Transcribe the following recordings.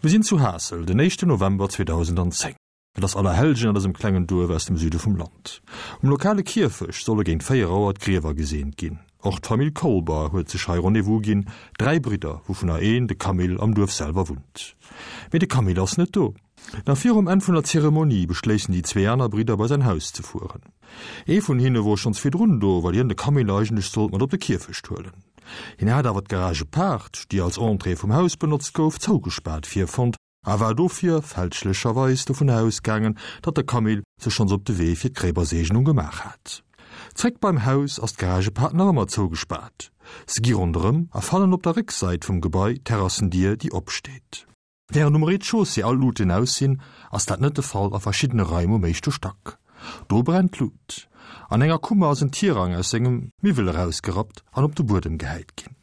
Mir sinn zu Haassel, den éischten November 2010. Et ass Allerhellgen an dësem klengen Duerf aus dem Süde vum Land. Um lokale Kierfecht solle géint 4 Auer d'Griewer geseent ginn. Och d'Famill Kolber huet sech hei Rendez-vous ginn, 3 Bridder, wouvunner een, de Camille, am Duerf selwer wunnt. Mee de Camille ass net do. Nach virum Enn vun der Zeremonie beschléissen déi zwee aner Bridder bei säin Haus ze fueren. Ee vun hinne wor schonns virdrun do, well hien de Camille eigentlech sollt mat op de Kierfecht huelen. Hien hat awer d'Garage-Paart, déi als Entrée vum Haus benotzt gouf, zougespaart virfonnt a war dofir fälschlecherweis dovun ausgaangen, datt de Camille sech schonns op de Wee fir d'Gréiwerseegnung gemaach hat. Zréck beim Haus ass d'Garagepaart nach ëmmer zougespaart. Se gi ronderëm a fannen op der Récksäit vum Gebai d'Terrassendier, déi opsteet. Wärend um Rez-de-chaussée all Luuten aus sinn, ass dat net de Fall a verschiddene Raim um éischte Stack. Do brennt d'Lut. An enger Kummer ass en Tirang aus sengem Miwwel erausgerappt an op de Buedem gehäit ginn.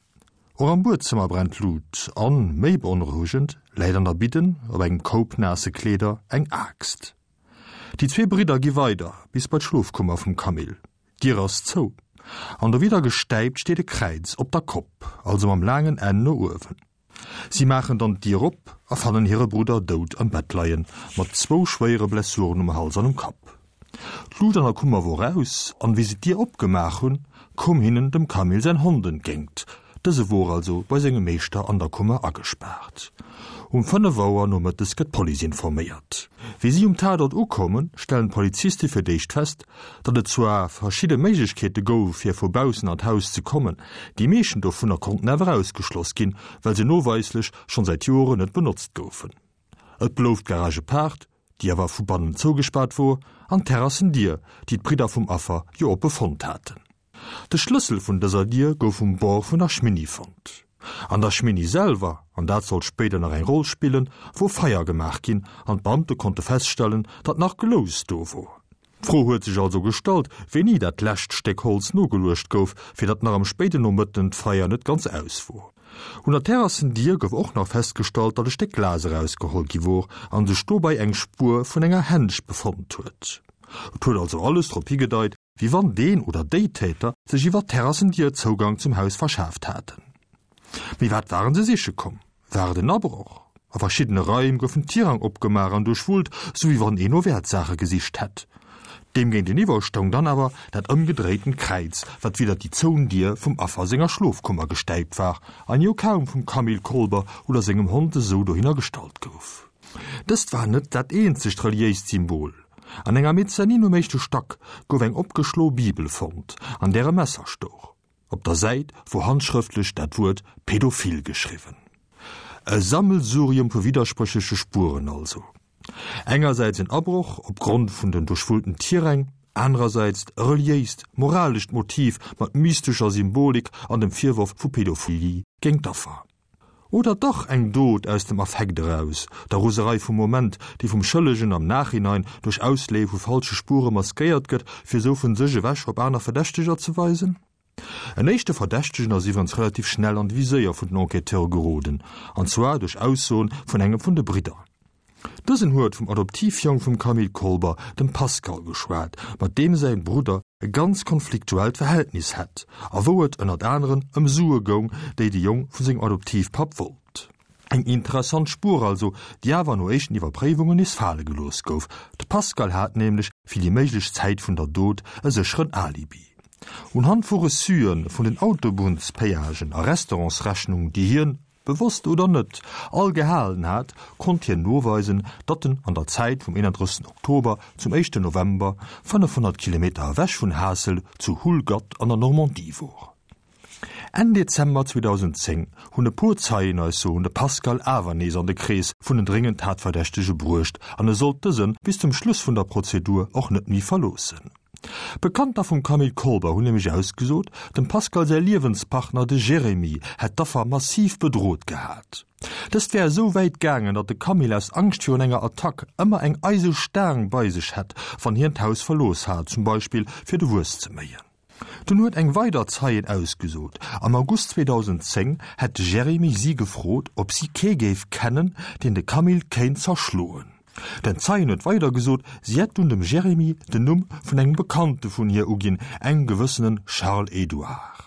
Och am Buedzëmmer brennt d'Lut an, méi beonrouegend, läit an der Bidden, op engem Koup naasse Kleeder, eng Aaxt. Déi zwee Bridder gi weider bis bei d'Schlofkummer vum Camille. D'Dier ass zou an dowidder gestäipt steet e Kräiz op der Kopp, also mam laangen Enn no uewen. Si maachen dann d'Dier op a fannen hire Brudder dout am Bett leien, mat zwou schwéiere Blessuren um Hals an um Kapp. D'Lut an der Kummer wor aus, an wéi se d'Dier opgemaach hunn, koum hinnen dem Camille säin Hond entgéingt. Dëse wor also bei sengem Meeschter an der Kummer agespaart. Um 5 Auer nomëttes gëtt d'Police informéiert. Wéi si um Tatort ukommen, stellen d'Poliziste fir d'éischt fest, datt et zwar verschidde Méiglechkeete gouf, fir vu baussen an d'Haus ze kommen, déi meeschten dovunner konnten awer ausgeschloss ginn, well se noweislech schonn säit Joren net benotzt goufen. Et blouf d'Garage Paart, déi awer vu bannen zougespaart wor, an d'Terrassendier, déi d'Bridder vum Affer jo oppe fonnt haten. De Schlëssel vun dëser Dier gouf um Bord vun der Schminni fonnt. An der Schminni selwer, an dat sollt spéider nach eng Roll spillen, wor Feier gemaach ginn an d'Beamte konnte feststellen, datt nach Glous do wor. D'Fro huet sech also gestallt, wéini dat lescht Stéck Holz nogeluecht gouf, fir datt nach am spéiden Nomëtten d'Feier net ganz aus wor. Un der Terrassendier gouf och nach festgestallt, datt e Stéck Glas erausgeholl gi wor an sech dobei eng Spuer vun enger Hänsch befonnt huet. Et huet also alles drop higedeit, wéi wann deen oder déi Täter sech iwwer d'Terrassendier Zougang zum Haus verschaaft haten. Mee wat waren se siche komm? War et en Abroch? A verschiddene Raim goufen d'Tirang opgemaach an duerchwullt, sou wéi wann een no Wäertsaache gesicht hätt. Deem géinteniwwer stoung dann awer dat ëmgedréitent Kräiz, wat widder déi zouen Dier vum Affer senger Schlofkummer gestäipt war an jo kaum vum Camille Kolber oder sengem Hond esou dohinner gestallt gouf. Dëst war net dat eenzegt reliéist Symbol. An enger Mezzanine um éischte Stack gouf eng opgeschloe Bibel fonnt, an där e Messer stouch. Op der Säit wor handschrëftlech dat Wuert pädophil geschriwwen. E Sammelsurium vu widderspréchleche Spueren also. Engersäits en Abroch op Grond vun den duerchwullten Tiräng, anerersäits e reliéist, moralescht Motiv mat mystescher Symbolik an dem Virworf vu Pädophilie géint d'Affer. Oder dach eng Dot aus dem Affekt eraus, der Roserei vum Moment, déi vum Schëllegen am Nachhinein duerch Ausleeë vu falsche Spuere maskéiert gëtt, fir esou vun sech ewech op aner Verdächteger ze weisen? En éischte Verdächtegen ass iwwerens relativ schnell an de Viséier vun den Enquêteure geroden, an zwar duerch Aussoen vun engem vun de Bridder. Dësen huet vum Adoptivjong vum Camille Kolber, dem Pascal, geschwat, mat deem säin Brudder e ganz konfliktuellt Verhältnis hätt a wou et ënnert aneren ëm Sue goung, déi de Jong vu sengem Adoptivpapp wollt. Eng interessant Spuer also, déi awer no éischten Iwwerpréiwungen nees fale gelooss gouf. De Pascal hat nämlech fir déi méiglech Zäit vun der Dot e sécheren Alibi. Unhand vu Reçuen vun den Autobunnspayagen a Restaurantsrechnung, déi hien, bewosst oder net, all gehalen hat, konnt hien noweisen, datt en an der Zäit vum 31 Oktober zum éischten November 500 Kilometer ewech vun Haassel zu Houlgatte an der Normandie wor. Enn Dezember 2010 hunn e puer Zeienaussoen de Pascal awer nees an de Krees vun den dréngend Tatverdächtege bruecht an e sollt dëse bis zum Schluss vun der Prozedur och net méi verloossen. Bekannter vum Camille Kolber hunn nämlech ausgesot, dem Pascal säi Liewenspartner, de Jérémy, hätt d'Affer massiv bedrot gehat. Dëst wär esou wäit gaangen, datt de Camille aus Angscht virun enger Attack ëmmer eng eise Staang bei sech hätt, wann hien d'Haus verlooss hat, zum Beispill fir de Wues ze méien. Dunn huet eng weider Zeien ausgesot, am August 2010 hätt de Jérémy si gefrot, ob si kee géif kennen, deen de Camille kéint zerschloen. Den Zeien huet weider gesot, si hätt dunn dem Jérémy den Numm vun engem Bekannte vun hir uginn, engem gewëssene Charles Edouard.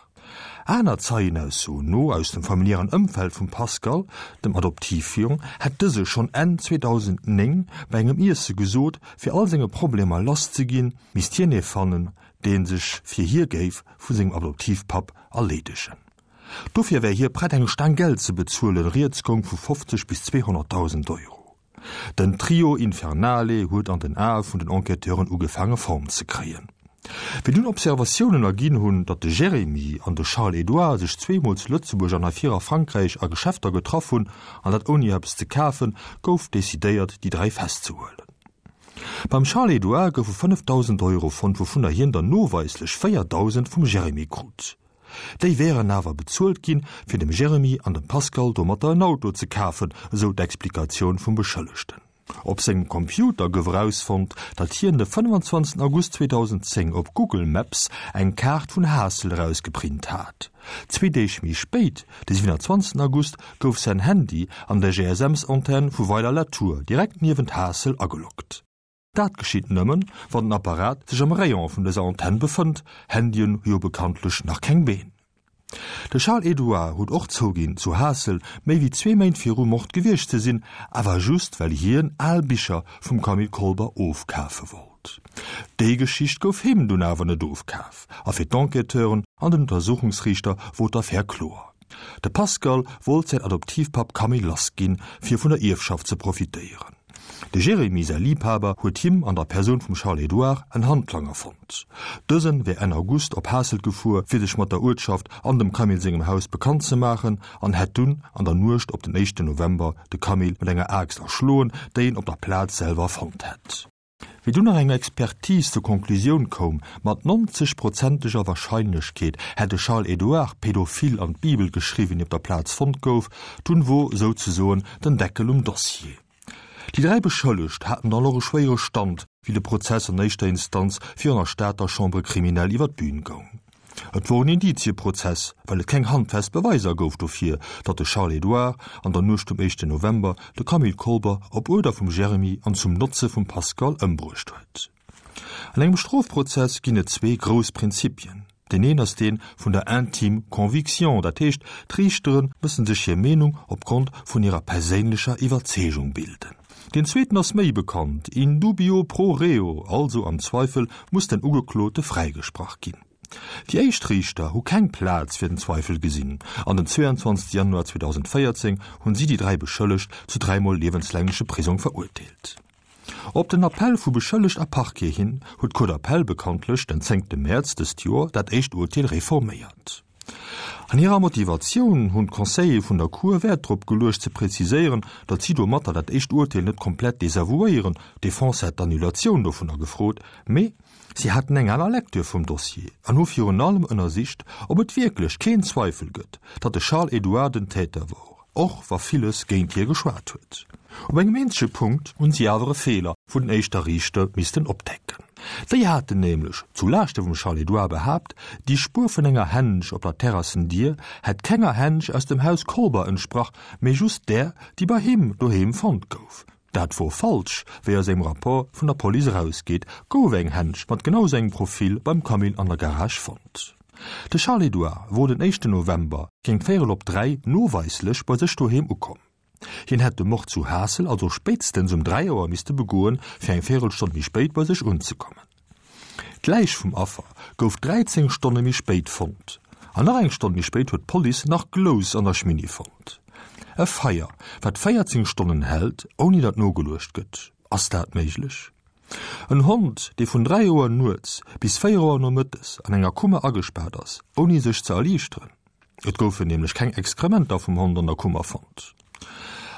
Aner Zeienaussoen no aus dem familiären Ëmfeld vum Pascal, dem Adoptivjong, hätt dëse schonn Enn 2009 bei engem Iesse gesot, fir all senge Problemer lass ze ginn, misst hien ee fannen, dee sech fir hie géif vu sengem Adoptivpapp erleedegen. Dofir wär hie prett eng Staang Geld ze bezuelen, rieds goung vu 50 bis 200.000 Euro. Den Trio Infernale huet an den Ae vun den Enquêteuren ugefaange Form ze kréien. Wéi dunn Observatiounen erginn hunn, datt de Jérémy an de Charles-Édouard sech zweemol zu Lëtzebuerg an hei vir a Frankräich a Geschäfter getraff hunn, an dat ouni eppes ze kafen, gouf decidéiert, déi 3 festzehuelen. Beim Charles-Édouard goufe 5.000 Euro fonnt, wouvunner hien der noweislech 4.000 vum Jérémy krut. Déi wären awer bezuelt ginn, fir dem Jeremy an dem Pascal domatter en Auto ze kafen, esou d'Explikatioun vum Beschëllegten. Op sengem Computer gouf erausfonnt, datt hien de 25 August 2010 op Google Maps eng Kaart vun Haassel erausgeprint hat. Zwee Deeg méi spéit, de 27 August, gouf säin Handy an der GSMs-Antenn vu Weiler-la-Tour, direkt niewent Haassel, ageloggt. Dat geschitt nëmmen, wann den Apparat sech am Rayon vun dëser Antenn befënnt, Handyen hu jo bekanntlech nach keng Been. De Charles-Édouard huet och zouginn, zu Haassel méi wéi zwee Méint virum Mord gewiescht ze sinn, awer just well hien al Bicher vum Camille Kolber ofkafe wollt. Déi Geschicht gouf him dunn awer net ofkaf a fir d'Enquêteuren an den Untersuchungsriichter wor d'Affär kloer, De Pascal wollt säin Adoptivpapp Camille lassginn, fir vun der Ierfschaft ze profitéieren. De Jérémy säi Liibhaber huet him an der Persoun vum Charles-Édouard en Handlanger fonnt. Dësen wär Enn August op Haasselt gefuer, fir sech mat der Uertschaft an dem Camille sengem Haus bekannt ze maachen an hätt dunn an der Nuecht op den éischten November de Camille mat enger Aaxt erschloen, déi en op der Plaz selwer fonnt hätt. Wéi dunn nach eng Expertise zur Konklusioun koum, mat 90 prozenteger Warscheinlechkeet hätt de Charles-Édouard pädophil an d'Bibel geschriwwen, déi op der Plaz fonnt gouf, dunn wor souzesoen den Deckel um Dossier. Déi 3 Beschëllegt haten dann och e schwéiere Stand, wéi de Prozess an éischter Instanz virun der Stater Chambre criminelle iwwer d'Bün goung. Et wor en Indizieprozess, well et keng handfest Beweiser gouf dofir, datt de Charles-Édouard an der Nuecht um éischten November de Camille Kolber op Uerder vum Jeremy an zum Notze vum Pascal ëmbruecht huet. An engem Strofprozess ginn et zwee grouss Prinzipien. Deen een ass dee vun der intime conviction, dat heescht, d'Riichtere mëssen sech hir Meenung opgrond vun hirer perséinlecher Iwwerzeegung bilden. Deen zweeten ass méi bekannt, in dubio pro reo, also am Zweifel muss den Ugeklote fräigesprach ginn. Déi éischt Riichter hu keng Plaz fir den Zweifel gesinn an den 22 Januar 2014 hunn si déi 3 Beschëllegt zu dräimol liewenslängleche Prisong verurteelt. Op den Appell vu Beschëllegt a Parquet hin huet d'Cour d'appel bekanntlech den 10 Mäerz dëst Joer dat éischt Urteel reforméiert. An hirer Motivatioun hunn d'Conseiller vun der Cour Wäert drop geluecht ze präziséieren, datt si domatter dat éischt Urteel net komplett desavouéieren, d'Defense hätt d'Annulatioun dovunner gefrot, mee si haten eng aner Lecture vum Dossier an hu virun allem ënnersicht, ob et wierklech keen Zweifel gëtt, datt de Charles Édouard den Täter wor, och wa villes géint hie geschwat huet. Op engem eenzege Punkt hunn si awer e Feeler vun den éischter Riichter missten opdecken. Déi haten nämlech, zu Laaschte vum Charles-Édouard behaapt, déi Spuer vun enger Hänsch op der Terrassendier hätt kenger Hänsch aus dem Haus Kolber entsprach, mee just där, déi bei him doheem fonnt gouf. Dat wor falsch, wéi aus engem Rapport vun der Police erausgeet, gouf eng Hänsch mat genau sou engem Profil beim Camille an der Garage fonnt. De Charles-Édouard wor den éischten November géint véierel op 3 noweislech bei sech doheem ukomm. Hien hätt de Mord zu Haassel also spéitstens um 3 Auer misste begoen, fir eng Véierelstonn méi spéit bei sech unzekommen. D'Läich vum Affer gouf 13 Stonne méi spéit fonnt. An nach eng Stonn méi spéit huet d'Police nach Glous an der Schminni fonnt. E Feier, wat 14 Stonnen hält, ouni datt nogeluecht gëtt, ass dat méiglech? En Hond, dee vun 3 Auer nuets bis 4 Auer nomëttes an enger Kummer agespaart ass, ouni sech ze erliichteren? Et goufen nämlech keng Exkrementer vum Hond an der Kummer fonnt.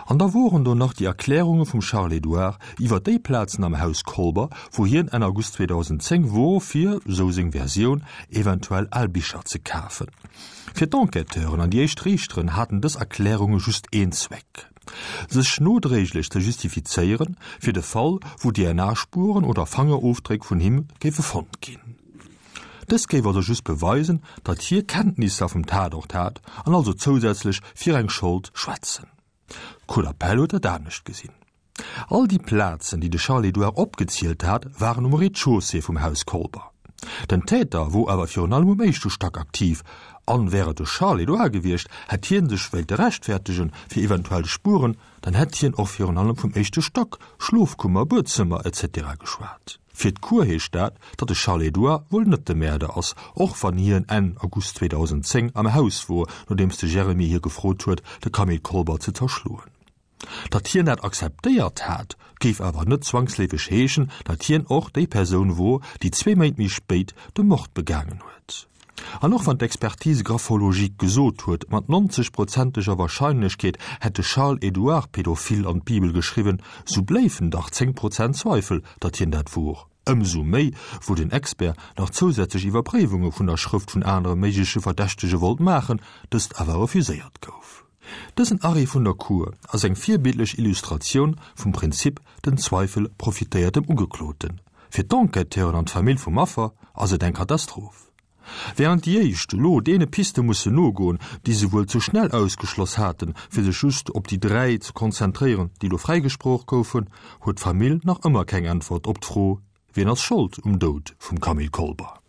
An da woren do nach déi Erklärunge vum Charles-Édouard iwwer déi Plazen am Haus Kolber, wou hien Enn August 2010 wor, fir, sou seng Versioun, eventuell al Bicher ze kafen. Fir d'Enquêteuren an déi éischt Riichteren haten dës Erklärunge just een Zweck, sech nodréiglech ze justifizéieren, fir de Fall, wou DNA-Spueren oder Fangerofdréck vun him géife fonnt ginn. Dëst géif also just beweisen, datt hie Kenntnisser vum Tatort hat an also zousätzlech fir eng Schold schwätzen. D'Cour d'appel huet dat anescht gesinn. All déi Plazen, déi de Charles-Édouard opgezielt hat, waren um Rez-de-chaussée vum Haus Kolber. Den Täter wor awer virun allem um éischte Stack aktiv. An wär et de Charles-Édouard gewiescht, hätt hien sech wéilte rechtfertegen fir eventuell Spueren, dann hätt hien och virun allem vum éischte Stack, Schlofkummer, Buedzëmmer, etc. Geschwat. Fir d'Cour heescht dat, datt de Charles-Édouard wuel net de Mäerder ass, och wann hien Enn August 2010 am Haus wor, nodeems de Jeremy hie gefrot huet, de Camille Kolber ze zerschloen. Datt hien dat akzeptéiert hat, géif awer net zwangsleefeg heeschen, datt hien och déi Persoun wor, déi zwee Méint méi spéit de Mord begaangen huet. An och wann d'Expertise graphologique gesot huet, mat 90 prozenteger Warscheinlechkeet hätt de Charles-Édouard Pädophil an d'Bibel geschriwwen, sou bléifen dach 10 Prozent Zweifel, datt hien dat wor. Ëmsou méi, wou den Expert nach zousätzlech Iwwerpréiwunge vun der Schrëft vun anere méigleche Verdächtege wollt maachen, dëst awer refuséiert gouf. Dësen Arrêt vun der Cour ass eng virbildlech Illustratioun vum Prinzip den Zweifel profitéiert dem Ugekloten. Fir d'Enquêteuren an d'Famill vum Affer ass et eng Katastroph. Wärend déi éischt elo deene Piste mussen nogoen, déi se wuel ze schnell ausgeschloss haten, fir sech just op déi 3 ze konzentréieren, déi elo fräigesproch goufen, huet d'Famill nach ëmmer keng Äntwert op d'Fro, Wien ass Schold um Doud vum Camille Kolber?